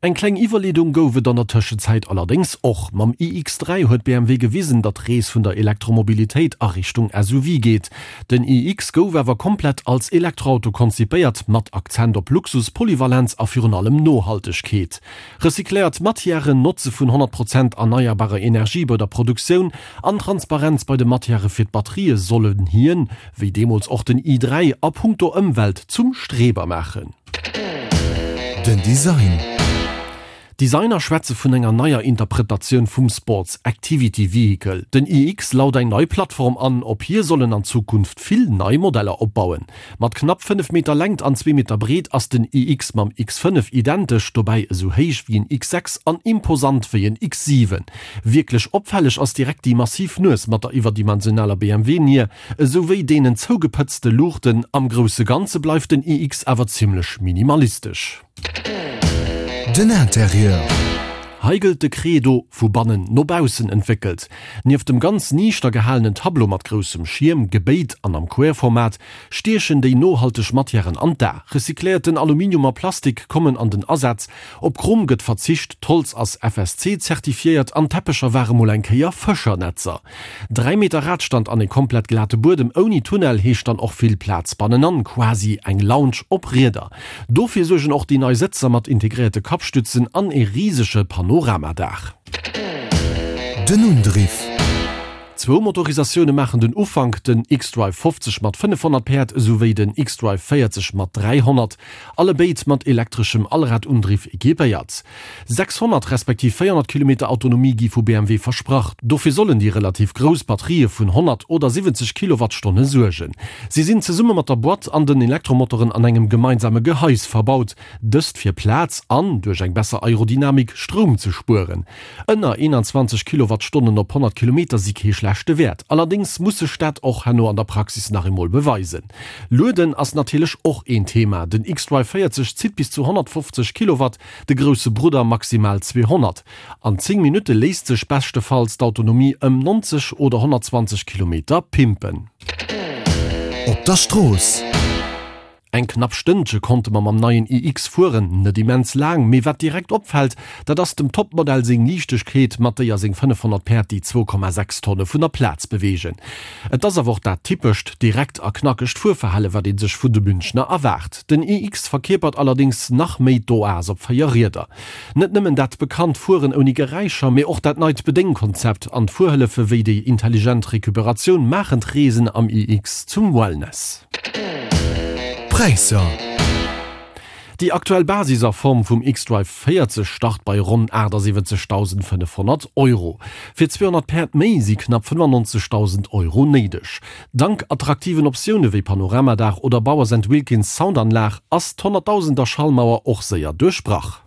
Eng kleng Iwwerleedung gouf et an der Tëschenzäit allerdéngs och. Mam iX3 huet BMW gewisen, datt d'Rees vun der Elektromobilitéit a Richtung SUV geet. Den iX gouf awer komplett als Elektroauto konzipéiert, mat Akzent op Luxus, Polyvalenz a virun allem Nohaltegkeet. Recycléiert Matièren, Notze vun 100 Prozent erneierbarer Energie bei der Produktioun an Transparenz bei de Matièrë fir d'Batterië sollen hien, wéi deemools och den i3, a punkto Ëmwelt zum Streber maachen. Den Design. Designer schwätze vun enger neier Interpretatioun vum Sports Activity Vehicle. Den iX laut eng nei Plattform an, op hir sollen an Zukunft vill nei Modeller opbauen. Mat knapp 5 Meter Längt an zwee Meter Breet ass den iX mam X5 identesch, dobäi esou héich wéi en X6 an imposant wéi en X7. Wierklech opfälleg ass direkt déi massiv Nues mat der iwwerdimensionaler BMW-Nier, Esou wéi deenen zougepëtzte Luuchten. Am grousse Ganze bleift den iX awer zimmlech minimalistesch. Den Interieur. Hei gëllt de Credo, vu bannen no baussen entwéckelt. Nieft dem ganz niichter gehalenen Tableau mat groussem Schierm, gebéit an am Querformat, stiechen déi nohalteg Matièren an d'A. Recycléierten Aluminium a Plastik kommen an den Asaz, op Chrom gëtt verzicht, d'Holz ass FSC-zertifiéiert an d'Teppecher ware mol eng Kéier Fëschernetzer. 3 Meter Radstand an e komplett glate Buedem ouni Tunnel heescht dann och vill Plaz bannenan, quasi eng Lounge op Rieder. Dofir suergen och déi nei Sëtzer mat integréierte Kappstützen an e risege Panoramadaach. Den Undriff. Zwou Motorisatioune maachen den Ufank, den xDrive 50 mat 500 Päerd esouwéi den xDrive 40 mat 300, allebéid mat elektreschem Allradundriff equipéiert. 600 respektiv 400 Kilometer Autonomie gi vu BMW versprach. Dofir sollen déi relativ grouss Batterië vun 100 oder 70 Kilowattstonne suergen. Si sinn zesumme mat der Boîte an den Elektromotoren an engem gemeinsame Gehais verbaut, dëst fir Plaz an, duerch eng besser Aerodynamik, Stroum ze spueren. Ënner 21 Kilowattstonnen op 100 Kilometer si kee schlechte Wäert. Allerdéngs muss sech dat och herno an der Praxis nach eemol beweisen. Lueden ass natierlech och een Thema. Den xDrive 40 zitt bis zu 150 Kilowatt, de grousse Brudder maximal 200. An 10 Minutte léisst sech beschtefalls d'Autonomie ëm 90 oder 120 Kilometer pimpen. Op der Strooss. Eng knapp Stënnche konnte mer mam neien iX fueren, net immens laang, mee wat direkt opfält, dat ass dem Topmodell seng Liichtegkeet, mat déier seng 500 Päerd déi 2,6 Tonne vun der Plaz beweegen. Et ass awer och dat typescht, direkt a knackegt Fuerverhale wat ee sech vun de Münchner erwaart. Den iX verkierpert allerdéngs nach méi d'Oas op 4 Rieder. Net nëmmen dat bekannt Fueren ouni Geräischer, mee och dat neit Bedéngkonzept an d'Fuerhëllefe wéi déi intelligent Recuperatioun maachen d'Reesen am iX zum Wellness. D'Präisser. Déi aktuell Basis a Form vum xDrive 40 start bei ronn 78.500 Euro. Fir 200 Päerd méi si knapp 95.000 Euro néideg. Dank attraktiven Optioune wéi Panoramadaach oder Bowers and Wilkins Soundanlag ass d'Honnertdausender Schallmauer och séier duerchbrach.